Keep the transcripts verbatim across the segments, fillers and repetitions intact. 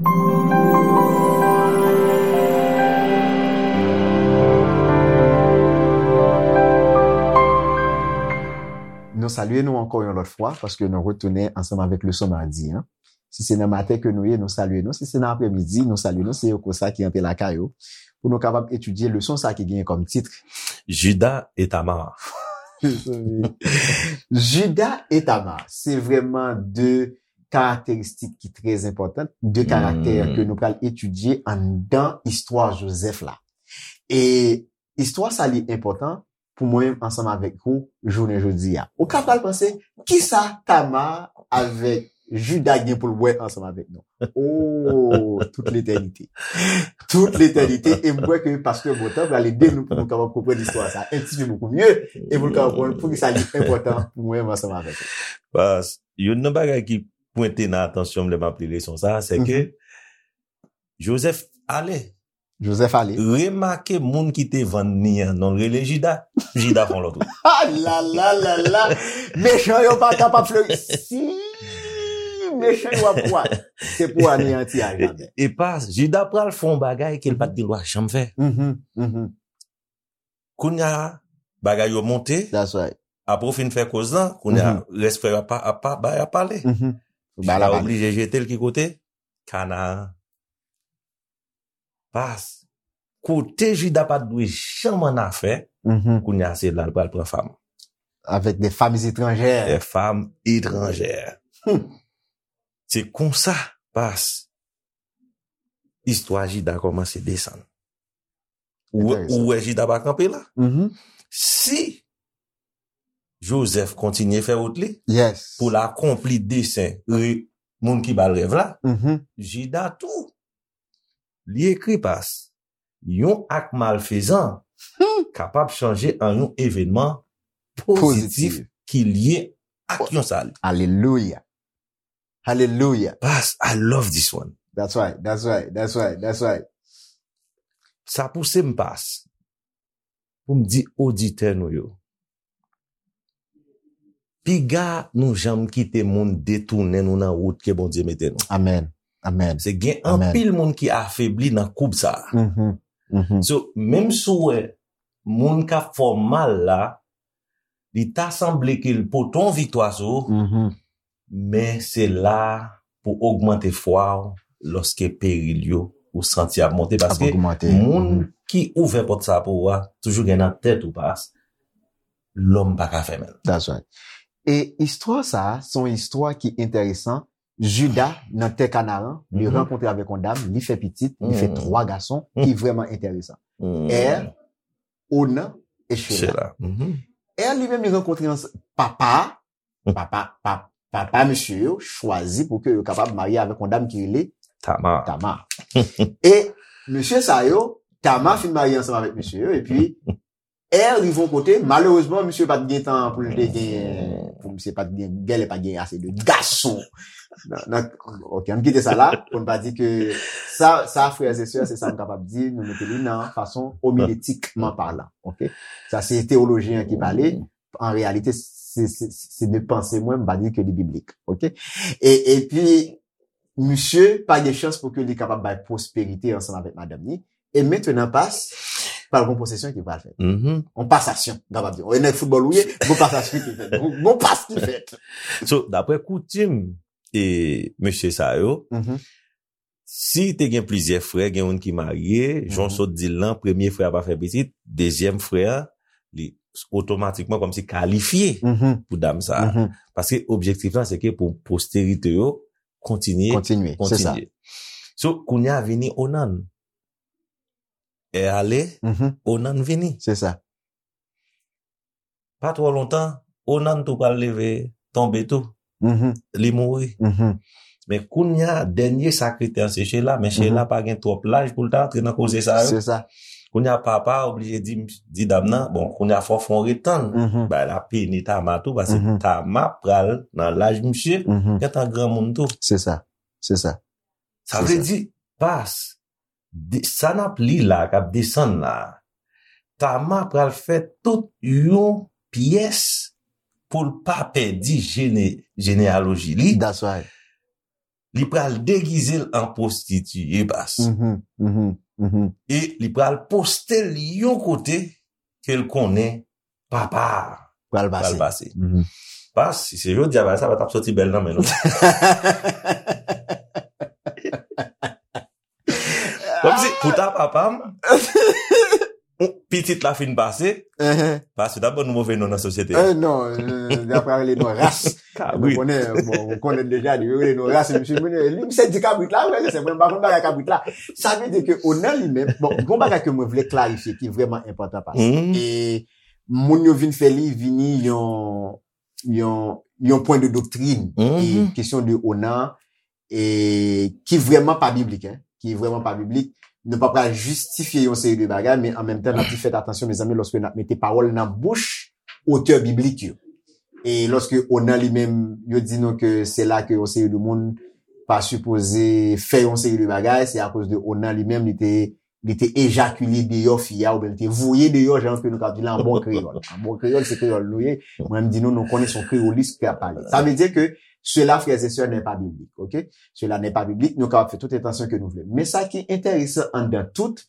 Nou salye nou ankò yon lòt fwa paske nou retounen ansanm avèk leson madi an. Si se nan maten ke nou ye, nou salye nou. Si se nan aprèmidi, nou salye nou. Se Yoko sa ki antre lakay ou pou nou kapab etidye leson sa ki genyen kòm tit Judas et Tamar. Judas et Tamar, se vrèman de karakteristik ki trè enpòtan, de karaktè ke nou pral etidye anndan istwa Jozèf la. E istwa sa li enpòtan pou mwen menm ansanm avèk ou jounen jodi a. Ou ka pral panse, kisa Tamar avèk Judas gen pou l wè ansanm avèk nou? Oh, tout letènite. Tout letènite. E m kwè ke pastè Bontan pral ede nou pou nou kapab konprann istwa sa en ti pe bokou mye e pou nou kapab konprann poukisa li enpòtan pou mwen menm ansanm avèk ou. Pas, youn nan bagay ki pwente nan atansyon m lè m ap li leson sa, se ke Jozèf ale. Jozèf ale. Remake moun ki te vann li an, non l rele Jida. Jida fè yon lòt wout. Ah, la, la, la, la. Mechan yo pa kapab fleri. Si mechan yo ap kwa, se pou aneyanti a jaden. E, e pa, Jida pral fè yon bagay ke l pa t gen dwa janm fè. Mhm, mhm. Kounye a, bagay yo monte. That's right. Apre w fin fè koz lan, kounye a, rès frè yo ap, ap, ap, ap pale. Mhm. Jida oblije jete l ki kote? Kanaan. Pas. Kote Jida pa t dwe janm annafè, kounye a se la l pral pran fanm. Avec des femmes étrangères. Des femmes étrangères. Hmm. Se konsa, pas, istwa Jida kòmanse desann. Ou wè, ou wè Jida pa kanpe la. Si Jozèf kontinye fè wout li pou l akonpli desen re-, moun ki ba l rèv la, Jida tou, li ekri pas, yon ak malfezan kapab chanje an yon evènman pozitif ki lye ak yon sali. Alelouya. Alelouya. Pas, I love this one. That's right, that's right, that's right, that's right. Sa pouse m pas pou m di oditè nou yo, piga nou janm kite moun detounen nou nan wout ke Bondye mete nou. Amèn. Amèn. Se gen anpil moun ki afebli nan koub sa a. So, menm si w wè moun k ap fè w mal la, li ta sanble ke l pote yon viktwa sou ou, men se la pou ogmante fwa w lòske peril yo ou santi ap monte. Paske moun ki ouvè pòt sa pou ou a, toujou gen nan tèt ou pas, lòm pa ka fèmen l. That's right. E istwa sa a, se yon istwa ki enteresan. Jida, nan tè Kanaran, li rankontre avèk yon dam, li fè pitit, li fè twa gason, ki vrèman enteresan. È, Onan e Chela. È, li menm, li rankontre papa, papa, pa-, papa mesye yo chwazi pou ke yo kapab marye avèk yon dam ki rele Tamar. Tamar. E mesye sa yo, Tamar fin marye ansanm avèk mesye yo, epi È rive yon kote, malerezman, misye pa t gen tan pou l te gen, pou misye pa t gen, genlè pa t gen ase de gason. Nan, nan, ok, ann kite sa la, pou n pa di ke sa, sa, frères et sœurs, se sa m kapab di, nou mete li nan fason homilétiquement parlant, ok? Sa se teyolojyen an ki pale, an reyalite, se, se, se de panse mwen, m pa di ke li biblik, ok? E, epi, misye pa gen chans pou ke li kapab bay pwosperite ansanm avèk madanm li. E mentenan pas, pral gon posesyon ki pral fèt. On pasasyon, m kapab di. E nèg foutbòl ou ye, gon pasasyon ki fèt. Gon, gon pas ki fèt. So, daprè koutim e mesye sa yo, si te gen plizyè frè, gen youn ki marye, jan w sot di l lan, premye frè a pa fè pitit, dezyèm frè a, li otomatikman kòmsi kalifye pou dam sa a. Paske objektif lan, se ke pou posterite yo kontinye, kontinye, se sa. So, kounye a vini Onan. È ale, Onan vini. Se sa. Pa twò lontan, Onan tou pral leve, tonbe tou. Li mouri. Men kounye a, dènye sa k rete an se Chela, men Chela pa gen twòp laj pou l ta antre nan koze sa yo. Se sa. Kounye a, papa a oblije di, di dam nan, bon, kounye a fò w fè yon ret tann. Bagay la pini Tama tou, paske Tama pral nan laj misye, gentan granmoun tou. Se sa. Se sa. Sa vle di, pas, de, sa n ap li la, k ap desann la, Tama pral fè tout yon pyès pou l pa pèdi jene-, jeneyaloji li. That's right. li pral degize l an pwostitiye, pas. Mhm, mhm, mhm. E li pral poste l yon kote ke l konnen papa a Pral pral pase. Pase. Mhm. Pas, si se jodi a bagay sa pa t ap soti bèl nan men nou. Kòmsi, pou ta papa m, pitit la fin pase, Mhm. pas, yo t ap ban nou move non nan sosyete a. Eh, non, euh, y ap rele nou ras. Nou Kabrit. konnen, bon, ou konnen deja, yo rele nou ras, misye, li, misye di kabrit la, wè, se mwen, m pa konn bagay kabrit la. Sa vle di ke Onan li menm, bon, gon bagay ke mwen vle klarifye ki vrèman enpòtan, pas. Mhm. E moun yo vin fè li vini yon, yon, yon pwen de doktrin. Mhm. E kesyon de Onan, e ki vrèman pa biblik, hein, ki vrèman pa biblik. Nou pa pral jistifye yon seri de bagay, men an menm tan, n ap di fèt atansyon, mezanmi, lòske n ap mete pawòl nan bouch otè biblik yo. E lòske Onan li menm, yo di nou ke se la ke yon seri de moun pa sipoze fè yon seri de bagay, se akoz de Onan li menm, li te, li te ejakile deyò fi a, oubyen li te voye deyò, jan ke nou ka di la, an bon kreyòl. An bon kreyòl, se kreyòl nou ye. Mwen, m di nou, nou konnen se yon kreyolis ki ap pale. Sa vle di ke cela, frères et sœurs, n'est pas biblique, ok? Cela n'est pas biblique, nou kapab fè tout entansyon ke nou vle. Men sa ki enteresan anndan tout,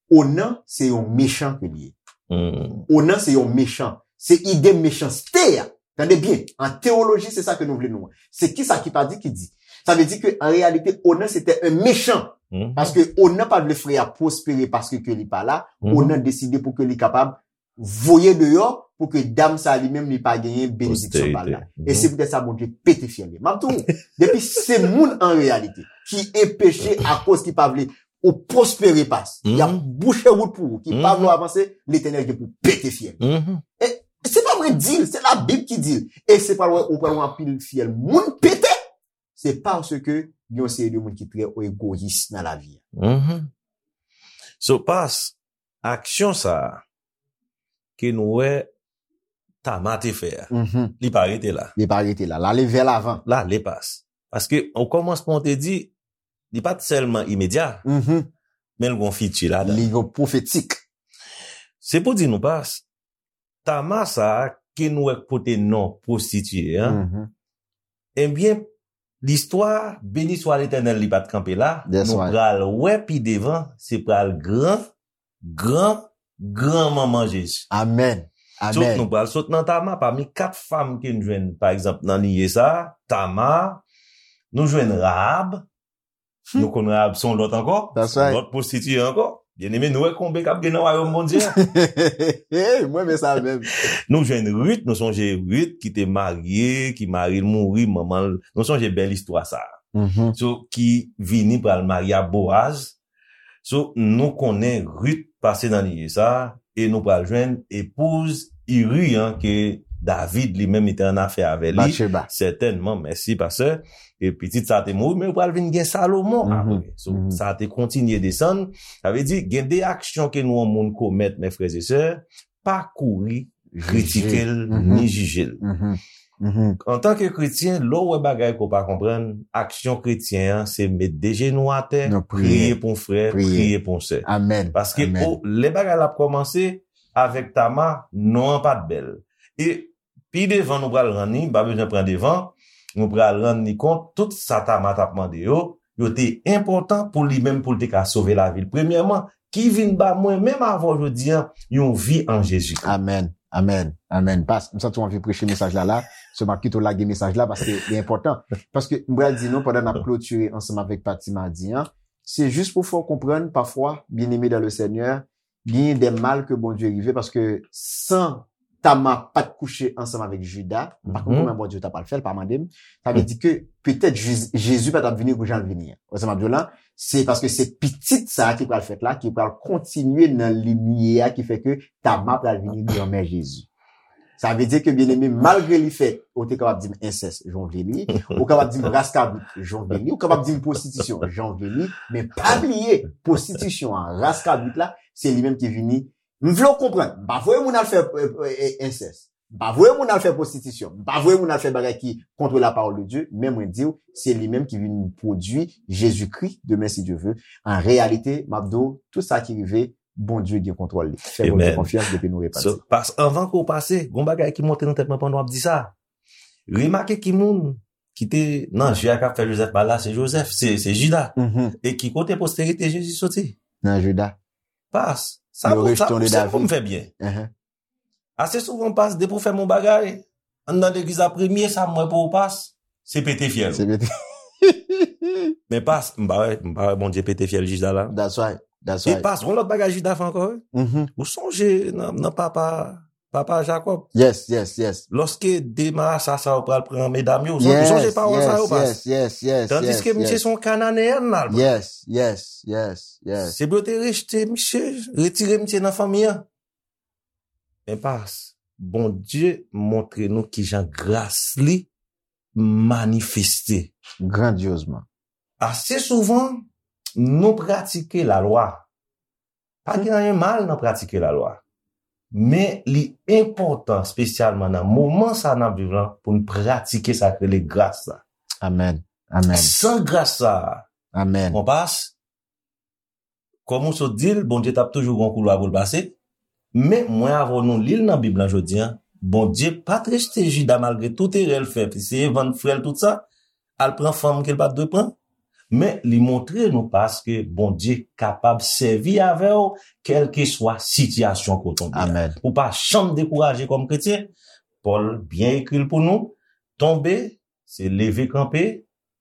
Onan se yon mechan ke li ye. Mhm. Onan se yon mechan. Se ide mechanste a. Tande byen, an teyoloji, se sa ke nou vle nou. Se ki sa ki pa di ki di. Sa vle di ke an reyalite, Onan se te yon mechan. Mhm. Paske Onan pa vle frè a pwospere paske ke li pa la. Mhm. Onan deside pou ke li kapab voye deyò pou ke dam sa li menm li pa genyen benediksyon pa la. Posterite. E se poutèt sa Bondye pete fyèl li. M ap di w, depi se moun an reyalite ki enpeche akoz ki pa vle ou pwospere, pas. Y ap Mhm. bouche wout pou ou, ki pa Mhm. vle w avanse, Letènèl gen pou pete fyèl. Mhm. E se pa mwen di l, se Labib ki di l. E se pral wè, ou pral wè anpil fyèl moun pete, se paske gen yon seri de moun ki trè egoyis nan lavi a. Mhm. So, pas, aksyon sa a ke nou wè Tama te fè a, Mhm. li pa rete la. Li pa rete la. L ale vè lavan. L ale, pas. Paske, o kòmansman, ou te di, li pa t sèlman imedya, Mhm. men l gon fiti ladan. Li gon pwofetik. Se pou di nou, pas, Tama sa a ke nou wè k pote non pwostitiye an, Mhm. ebyen, listwa, beni swa Letènèl, li pa t kanpe la, That's nou right. pral wè pi devan, se pral gran, gran, gran manman Jezi. Amèn. So, Amèn. nou pral sot nan Tama, pami kat fanm ke n jwenn, pa egzanp, nan liye sa a, Tama, nou jwenn Rahab, nou konn Rahab se yon lòt ankò, That's se yon right. lòt pwostitiye ankò. Byeneme, nou wè konbe k ap gen nan wayòm Bondye a. Hey, mwen, men sa menm. Nou jwenn Rit, nou sonje Rit ki te marye, ki mari l mouri, manman l, nou sonje bèl istwa sa a. Mhm. So, ki vini pral marye a Boaz. So, nou konnen Rit pase nan liye sa a, e nou pral jwenn epouz Iri an ke David li menm li te an afè avè li. Batcheba. Sètènman, mèsi, pastè. E pitit sa te mouri, men yo pral vin gen Salomon Mhm. apre. So, Mhm. sa te kontinye desann. Sa vle di, gen de aksyon ke nou yon moun komèt, mè frè e sè, pa kouri kritike l, Mhm. ni jije l. Mhm. Mhm. Antanke kretyen, lè w wè bagay ke w pa konprann, aksyon kretyen an, se met de jenou atè, Nou priye. Priye pou yon frè, Priye. Priye pou yon sè. Amèn. Paske Amèn. o, lè bagay la ap kòmanse avèk Tama, non an pa t bèl. E pi devan nou pral rann li, m pa bezwen pran devan, nou pral rann li kont, tout sa Tama t ap mande yo, yo te enpòtan pou li menm pou l te ka sove lavi l. Premyèman, ki vin ba mwen, menm avè w jodi an, yon vi an Jezikri. Amèn. Amèn. Amèn. Pas, m santi w anvi preche mesaj la la. So, m ap kite w lage mesaj la paske li enpòtan. Paske m pral di nou, pandan n ap klotire ansanm avèk pati madi an, se jis pou fè w konprann, pafwa, byeneme dan le Senyè, genyen de mal ke Bondye rive, paske san Tama pa t kouche ansanm avèk Jida, m pa konn Mhm. kòman Bondye ta pral fè l, pa mande m. Sa vle di ke petèt Jezi, Jezi pa t ap vini kou jan l vini an. Wè sa m ap di w la? Se paske se pitit sa a ki pral fèt la, ki pral kontinye nan linye a ki fè ke Tama pral vini granmè Jezi. Sa vle di ke, byeneme, malgre li fè, ou te kapab di m ensès, jan w vle li, ou kapab di m ras kabrit, jan w vle li, ou kapab di m pwostitisyon, jan w vle li, men pa bliye, pwostitisyon an, ras kabrit la, se li menm ki vini. M vle w konprann, m pa voye moun al fè, euh, euh, ensès. M pa voye moun al fè pwostitisyon. M pa voye moun al fè bagay ki contre la parole de Dieu. Men mwen di w, se li menm ki vin pwodui Jezikri demen, si Dye ve. An reyalite, m ap di w, tout sa ki rive, Bondye gen kontwòl li. Fè Bondye Amen. Konfyans depi nou repanti. So, pas, anvan ke w pase, gon bagay ki monte nan tèt mwen pandan w ap di sa. Remake ki moun ki te nan je a k ap fè Jozèf mal la, se Jozèf, se, se Jida. E ki kote posterite Jezi soti? Nan Jida. Pas, sa pou, sa pou, sa pou m fè byen. Ase souvan, pas, depi w fè m yon bagay, anndan legliz la, premye sa m wè pou ou, pas, se pete fyèl. Se pete. Men pas, m pa wè, m pa wè Bondye pete fyèl Jida la. That's right. That's right. E pas, yon lòt bagay Jida fè ankò, wi. Ou sonje nan, nan papa, papa Jakòb. Yes, yes, yes. Lòske de marasa sa yo pral pran medam yo, ou sonje, ou sonje pawòl sa yo, pas. Yes, yes, yes, yes. Tandiske misye se yon Kananeyèn la, l pran. Yes, yes, yes, yes. Se pou yo te rejte misye, retire misye nan fanmi an. Men pas, Bondye montre nou kijan gras li manifeste. Grandyozman. Ase souvan, nou pratike lalwa. Pa gen anyen mal nan pratike lalwa. Men li enpòtan, espesyalman nan moman sa n ap viv lan, pou n pratike sa k rele gras la. Amèn. Amèn. San gras sa, amèn, mon pas, kòm ou sot di l, Bondye t ap toujou gen yon koulwa pou l pase. Men mwen avè w nou li l nan Bib lan jodi a. Bondye pa t rejte Jida malgre tout erè l fè, eseye vann frè l tout sa, al pran fanm ke l pa t dwe pran. Men li montre nou paske Bondye kapab sèvi avè w, kèlkeswa sitiyasyon ke w tonbe a. Amèn. Ou pa janm dekouraje kòm kretyen. Pòl byen ekri l pou nou, tonbe, se leve kanpe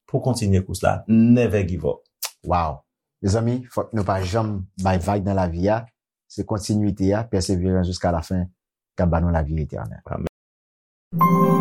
pou kontinye kous la. Never give up. Wow. Mezanmi, fòk nou pa janm bay vag nan lavi a. Se kontinwite a, pèseverans jiska lafen, k ap ba nou lavi etènèl. Amèn.